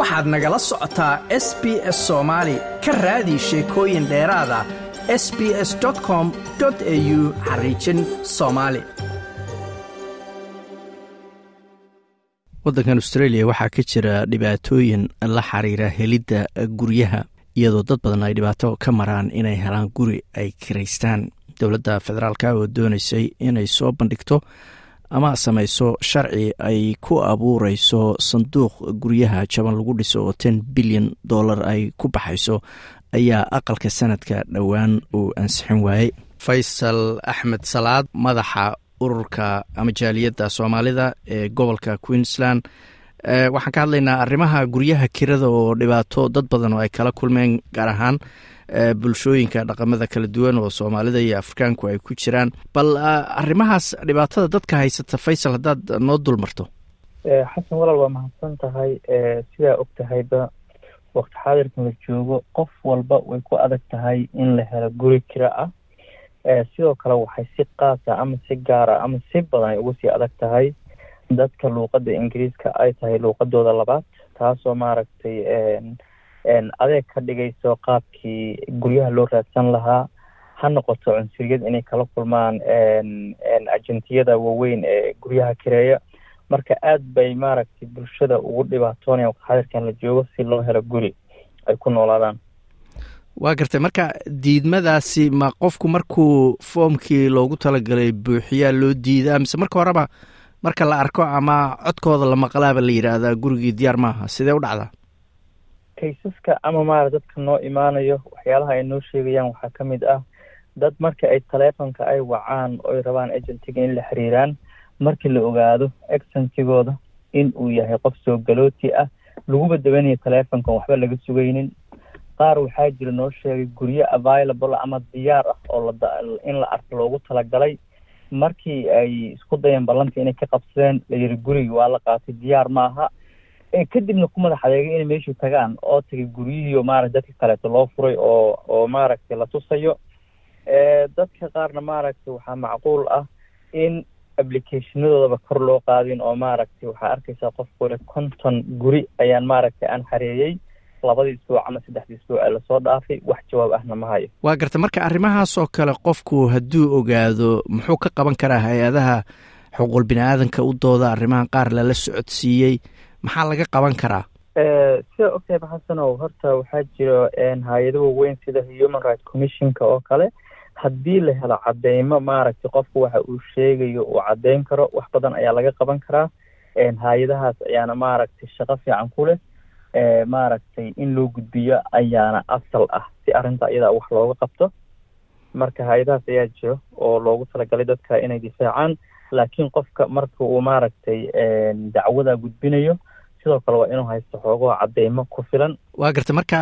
Waxaad nagala socotaa SBS Soomaali. Ka raadi sheekooyin dheeraada sbs.com.au/Somali. Waddankan Australia waxaa ka jira dhibaatooyin la xiriira helidda guryaha, iyadoo dad badan ay dhibaato ka maraan inay helaan guri ay kiraystaan. Dowladda federaalka oo doonaysay inay soo bandhigto ama samayso sharci ay ku abuureyso sanduuq guryaha jaban lagu dhiso oo $10 bilyan ay ku baxayso ayaa aqalka sanadka dhowaan uu ansixin waayey. Faysal Axmed Salaad, madaxa ururka ama jaaliyadda Soomaalida ee gobolka Queensland, waxaan ka hadlaynaa arrimaha guryaha kirada oo dhibaato dad badan oo ay kala kulmeen, gaar ahaan bulshooyinka dhaqamada kala duwan oo Soomaalida iyo Afrikaanku ay ku jiraan. Bal arrimahaas dhibaatada dadka haysata, Faysal, haddaad noo dul marto. Xasan walaal, waa mahadsan tahay. Sidaa og tahayba, waqti xaadirkan la joogo qof walba way ku adag tahay in la helo guri kira ah. Sidoo kale waxay si qaasa ama si gaara ama si badan ay ugu sii adag tahay dadka luuqadda Ingiriiska ay tahay luuqadooda labaad, taasoo maaragtay adeeg ka dhigayso qaabkii guryaha loo raadsan lahaa, ha noqoto cunsuriyad inay kala kulmaan agentiyada waaweyn ee guryaha kireeya. Marka aad bay maaragtay bulshada ugu dhibaatoonaya waqti xaadirkan la joogo si loo helo guri ay ku noolaadaan. Waa gartay. Marka diidmadaasi ma qofku markuu foomkii loogu talagalay buuxiyaa loo diidaa, mise marka horeba marka la arko ama codkooda la maqlaaba la yidhaahdaa gurigii diyaar maaha? Sidee u dhacdaa? Cases-ka ama maara dadka noo imaanayo waxyaalaha ay noo sheegayaan waxaa ka mid ah dad marka ay taleefonka ay wacaan oy rabaan agentiga in la xiriiraan, markii la ogaado accentigooda in uu yahay qof soo galooti ah, laguba dabanayo taleefonkan, waxba laga sugaynin. Qaar waxaa jira noo sheegay guryo available ama diyaar ah oo in la arko loogu talagalay, markii ay isku dayeen ballantii inay ka qabsadeen, la yiri gurigi waa la qaatay, diyaar ma aha. Kadibna ku madax adeegay inay meeshii tagaan oo tagay guryihii oo maaragtay dadka kaleeto loo furay oo maaragtay la tusayo. Dadka qaarna maaragtay waxaa macquul ah in applicationadoodaba kor loo qaadin, oo maaragtay waxaa arkaysaa qof kule 50 guri ayaan maaragtay aan xareeyey labadii isbuuc ama saddexdii isbuuc ee lasoo dhaafay, wax jawaab ahna ma hayo. Waa garta. Marka arrimahaas oo kale qofku hadduu ogaado, muxuu ka qaban karaa? Hay-adaha xuquuqul bini aadanka u dooda arrimahan qaar lala socodsiiyey, maxaa laga qaban karaa? Sida ogtahay Xasanow, horta waxaa jiro hay-ado waaweyn sida Human Right Commissionka oo kale. Haddii la helo cadeymo maaragtay qofku waxa uu sheegayo uu caddeyn karo, wax badan ayaa laga qaban karaa. Hay-adahaas ayaana maaragtay shaqo fiican ku leh, maaragtay in loo gudbiyo ayaana asal ah si arrinta iyadaa wax looga qabto. Marka hay-adahaas ayaa jiro oo loogu talagalay dadka inay difaacaan, laakiin qofka marka uu maaragtay dacwada gudbinayo, sidoo kale waa inuu haysto xoogaha cadeymo ku filan. Waa garta. Marka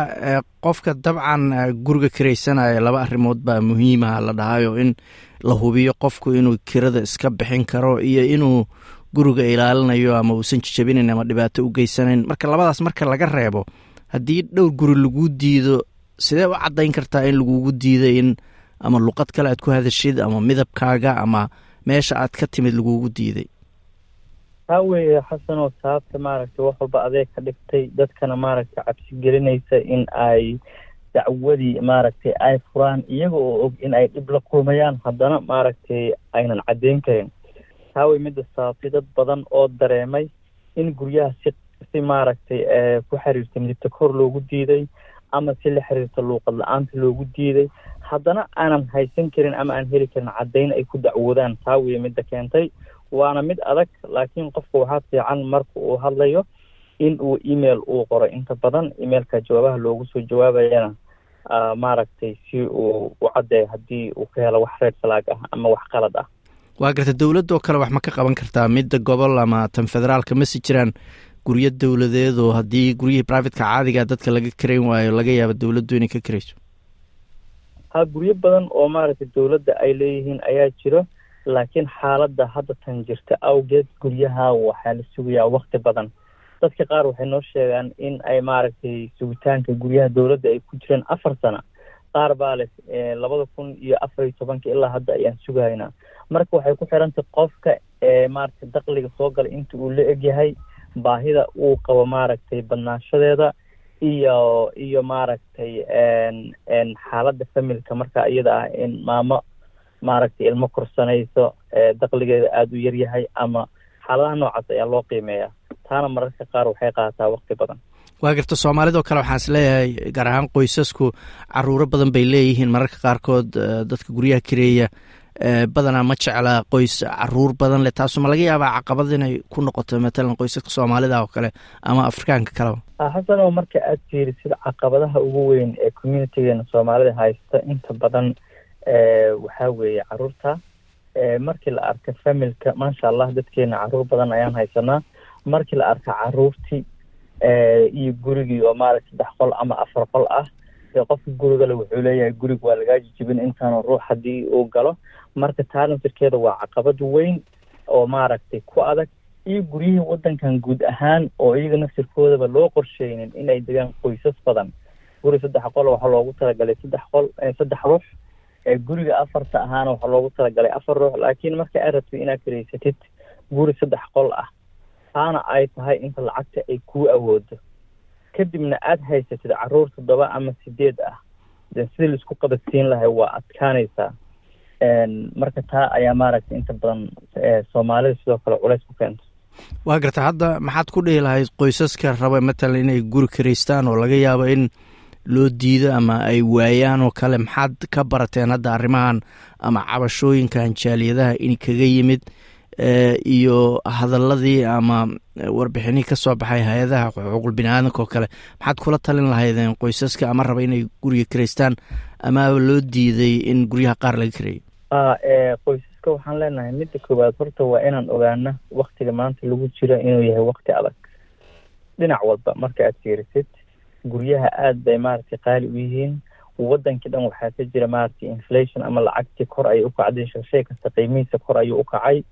qofka dabcan guriga kiraysanaya laba arrimood baa muhiimaha la dhahayo: in la hubiyo qofku inuu kirada iska bixin karo iyo inuu guriga ilaalinayo ama uusan jijabinayn ama dhibaato u geysanayn. Marka labadaas marka laga reebo, haddii dhowr guri lagu diido, sidee u caddayn kartaa in lagugu diiday in ama luqad kale aad ku hadashid ama midabkaaga ama meesha aad ka timid lagugu diiday? Taa weeye, Xasanoo, sababta maaragtay wax walba adeeg ka dhigtay dadkana maaragtay cabsi gelinaysa in ay dacwadii maaragtay ay furaan, iyaga oo og in ay dhib la kulmayaan, haddana maaragtay aynan caddeyn karin. Taa wey midda sababtay dad badan oo dareemay in guryaha si maaragtay ku xiriirta midibta kor loogu diiday ama si la xiriirta luuqad la-aanta loogu diiday, haddana aanan haysan karin ama aan heli karin caddeyn ay ku dacwoodaan. Taa weye midda keentay, waana mid adag, laakiin qofka waxaa fiican marka uu hadlayo in uu email uu qoro. Inta badan emailka jawaabaha loogu soo jawaabayana maaragtay si uu u caddeeyo haddii uu ka helo wax red flag ah ama wax qalad ah. Waa garta. Dowladda oo kale wax ma ka qaban kartaa, midda gobol ama tan federaalka? Masi jiraan guryo dowladeed oo haddii guryihii privateka caadiga dadka laga karayn waayo, laga yaabo dowladdu inay ka karayso? Ha, guryo badan oo maaragtay dowladda ay leeyihiin ayaa jiro, laakiin xaaladda hadda tan jirta awgeed guryaha waxaa la sugayaa waqti badan. Dadka qaar waxay noo sheegaan in ay maaragtay sugitaanka guryaha dowladda ay ku jireen 4 sano. Qaar baa leh 2014-ka ilaa hadda ayaan sugahaynaa. Marka waxay ku xirantay qofka maaragtay dakhliga soo gala inta uu la egyahay. Baahida uu qabo, maaragtay, badnaanshadeeda iyo maaragtay, xaaladda familka marka iyada ah, in maamo, maaragtay, ilmo korsanayso, dakhligeeda aada u yaryahay ama xaaladaha noocaas ayaa loo qiimeeyaa. Taana mararka qaar waxay qaadataa waqti badan. Waa garta. Soomaalidoo kale waxaan is leeyahay, gaar ahaan qoysasku caruuro badan bay leeyihiin. Mararka qaarkood dadka guryaha kireeya badanaa ma jecla qoys caruur badan leh. Taasu ma laga yaabaa caqabad inay ku noqoto, matalan, qoysaska Soomaalida oo kale ama Afrikaanka kaleba? Xasano, marka aad fiirisid caqabadaha ugu weyn ee communitygeena Soomaalida haysta, inta badan waxaa weeye caruurta. Markii la arka familka, maasha Allah, dadkeena caruur badan ayaan haysanaa. Markii la arka caruurtii iyo gurigii oo, maaragta, 3 qol ama 4 qol ah, dee qofka gurigale wuxuu leeyahay guriga waa lagaa jijibin intaanu ruux haddii uu galo. Marka taa naftirkeeda waa caqabad weyn oo, maaragtay, ku adag. Iyo guryihii waddankan guud ahaan oo iyaga naftirkoodaba loo qorsheynin inay degaan qoysas badan. Guri 3 qol waxaa loogu talagalay 3 qol, 3 ruux. Guriga afarta ahaana waxaa loogu talagalay 4 ruux. Laakiin marka aad rabtid inaad kiraysatid guri 3 qol ah, taana ay tahay inta lacagta ay kuu awoodo, kadibna aada haysatid caruur toddoba ama sideed ah, de sidii laisku qabadsiin lahay waa adkaanaysaa. Marka taa ayaa, maaragtay, inta badan Soomaalida sidoo kale culays ku keento. Waa garta. Hadda maxaad ku dhihi lahayd qoysaska raba, matalan, inay guri kiraystaan oo laga yaabo in loo diido ama ay waayaan oo kale? Maxaad ka barateen hadda arrimahan ama cabashooyinkan jaaliyadaha in kaga yimid iyo hadaladii ama warbixinihii ka soo baxay hay-adaha xuquuqul bini aadamka oo kale? Maxaad kula talin lahaydeen qoysaska ama raba inay guriga kiraystaan ama loo diiday in guryaha qaar laga kireeyo? Qoysaska waxaan leenahay, midda koowaad horta waa inaan ogaano waktiga maanta lagu jiro inuu yahay wakti adag dhinac walba. Marka aad fiirisid, guryaha aada bay, maaragtay, qaali u yihiin. Wadankii dhan waxaa ka jira, maaragtay, inflation ama lacagtii kor ayay u kacday. Shay kasta qiimihiisa kor ayuu u kacay.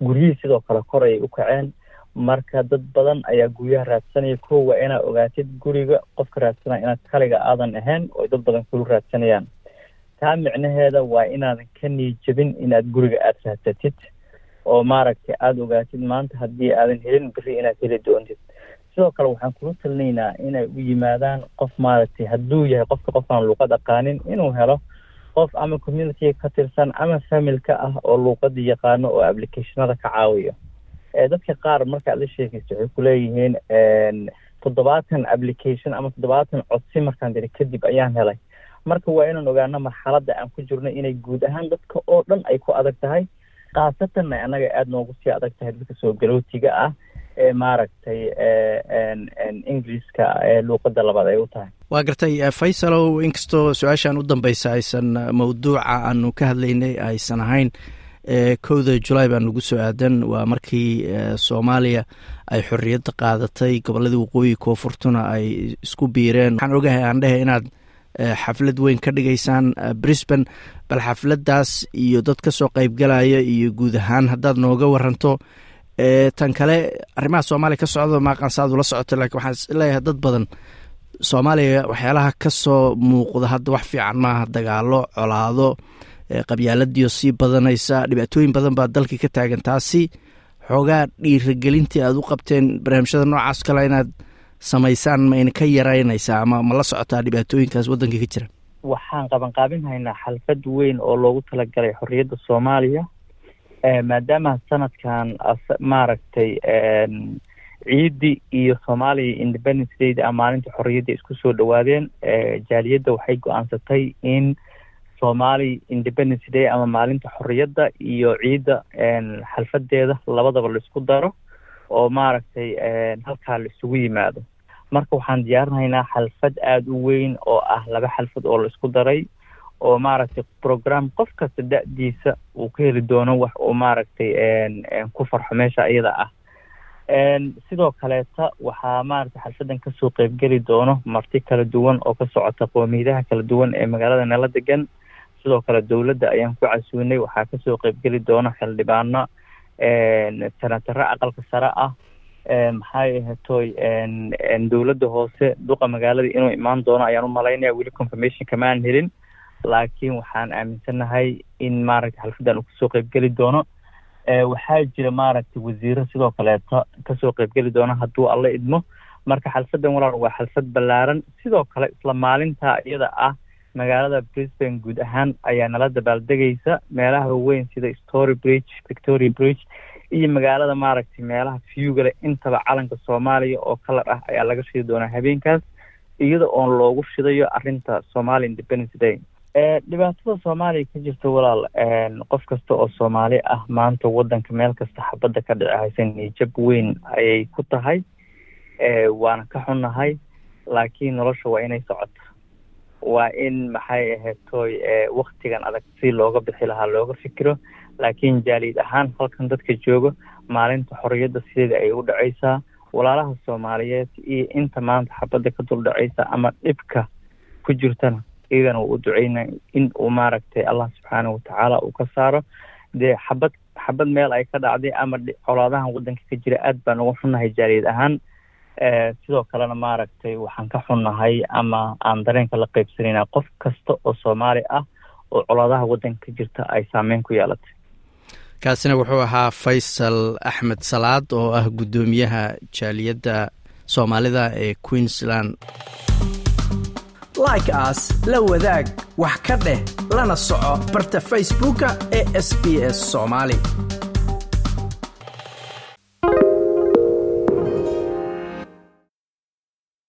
Guryihii sidoo kale kor ayay u kaceen. Marka dad badan ayaa guryaha raadsanaya. Ko waa inaad ogaatid guriga qofka raadsanaya inaad kaliga aadan ahayn oo dad badan kulu raadsanayaan. Taa micnaheeda waa inaadan ka niijabin inaad guriga aada raadsatid oo, maaragtay, aada ogaatid maanta haddii aadan helin, berri inaad heli doontid. Sidoo kale waxaan kula talinaynaa inay u yimaadaan qof, maaragtay, hadduu yahay qofka qof aan luuqad aqaanin, inuu helo qof ama communityga ka tirsan ama familka ah oo luuqada yaqaano oo applicationada ka caawiyo. Dadka qaar markaad la sheekaysto waxay kuleeyihiin 70 application ama 70 codsi markaan diri kadib ayaan helay. Marka waa inaan ogaano marxaladda aan ku jirno inay guud ahaan dadka oo dhan ay ku adag tahay, khaasatanna annaga aada noogu sii adag tahay, dadka soo galootiga ah ee, maaragtay, Ingiriiska luuqadda labaad ay u tahay. Waa gartay. Faysalow, inkastoo su-aashan u dambeysa aysan mawduuca aanu ka hadlaynay aysan ahayn, 1-da Julaay baa nagu soo aadan. Waa markii Soomaaliya ay xorriyadda qaadatay, gobolladii waqooyi koonfurtuna ay isku biireen. Waxaan ogahay, aan dhehe, inaad xaflad weyn ka dhigaysaan Brisbane. Bal xafladdaas iyo dad ka soo qeybgalaya iyo guud ahaan haddaad nooga waranto. Tan kale, arrimaha Soomaaliya ka socda maaqan saad ula socoto, lakin waxaan is leeyahay dad badan Soomaaliya waxyaalaha ka soo muuqda hadda wax fiican maaha: dagaalo, colaado, qabyaaladiio sii badanaysa, dhibaatooyin badan baa dalkii ka taagan. Taasi xoogaa dhiiragelintii aad u qabteen barnaamijyada noocaas kale inaad samaysaan ma ina ka yaraynaysaa ama ma la socotaa dhibaatooyinkaas waddanka ka jira? Waxaan qabanqaabin haynaa xalfad weyn oo loogu talagalay xorriyadda Soomaaliya, maadaama sanadkan, maaragtay, ciiddi iyo Soomaaliya Independence Day ama maalinta xorriyadda isku soo dhawaadeen. Jaaliyadda waxay go-aansatay in Somali Independence Day ama maalinta xorriyadda iyo ciidda xalfadeeda labadaba laisku daro oo, maaragtay, halkaa la isugu yimaado. Marka waxaan diyaarinaynaa xalfad aada u weyn oo ah laba xalfad oo la isku daray oo, maaragtay, program qof kasta da-diisa uu ka heli doono wax uu, maaragtay, ku farxo meesha iyada ah. Sidoo kaleeta waxaa, maaragtay, xalfadan kasoo qeybgeli doono marti kala duwan oo ka socota qoomiyadaha kala duwan ee magaalada nala degan. Sidoo kale dowladda ayaan ku casuunay. Waxaa kasoo qeybgeli doona xildhibaano, senataro aqalka sare ah, maxay ahatoy, dowladda hoose, duqa magaalada inuu imaan doono ayaan u malaynaya. Weli confirmation kamaan helin, laakiin waxaan aaminsanahay in, maaragtay, xalfadan uu kasoo qeybgeli doono. Waxaa jira maaragtay wasiiro sidoo kaleeto kasoo qeybgeli doona hadduu Alla idmo. Marka xalfadan, walaal, waa xalfad ballaaran. Sidoo kale isla maalintaa iyada ah magaalada Brisbane guud ahaan ayaa nala dabaaldegaysa, meelaha weyn sida Story Bridge, Victoria Bridge iyo magaalada maaragtay meelaha viewgale intaba calanka Soomaaliya oo colour ah ayaa laga shidi doonaa habeenkaas, iyada oon loogu shidayo arrinta Somali Independence Day. Dhibaatada Soomaaliya ka jirta, walaal, qof kasta oo Soomaali ah maanta wadanka meel kasta xabadda ka dhici haysa niyad jab weyn ayay ku tahay, waana ka xunnahay. Laakiin nolosha waa inay socoto, waa in maxay ahayd toy waktigan adag si looga bixi lahaa looga fikiro. Laakiin jaaliyad ahaan halkan dadka joogo maalinta xorriyadda sideeda ayay u dhacaysaa. Walaalaha Soomaaliyeed iyo inta maanta xabadda ka dul dhacaysa ama dhibka ku jirtana iyagana wuu u duceyna in uu maaragtay Allah subxaanahu watacaala uu ka saaro. Dee xabad xabad meel ay ka dhacday ama colaadahan wadanka ka jira aad baan uga xunnahay jaaliyad ahaan. Sidoo kalena maaragtay waxaan ka xunnahay ama aan dareenka la qeybsanayna qof kasta oo Soomaali ah oo colaadaha wadanka ka jirta ay saameyn ku yeelatay. Kaasina wuxuu ahaa Faysal Axmed Salaad oo ah guddoomiyaha jaaliyadda Soomaalida ee Queensland. Like saar, la wadaag, wax ka dheh, lana soco barta Facebooka ee SBS Soomaali.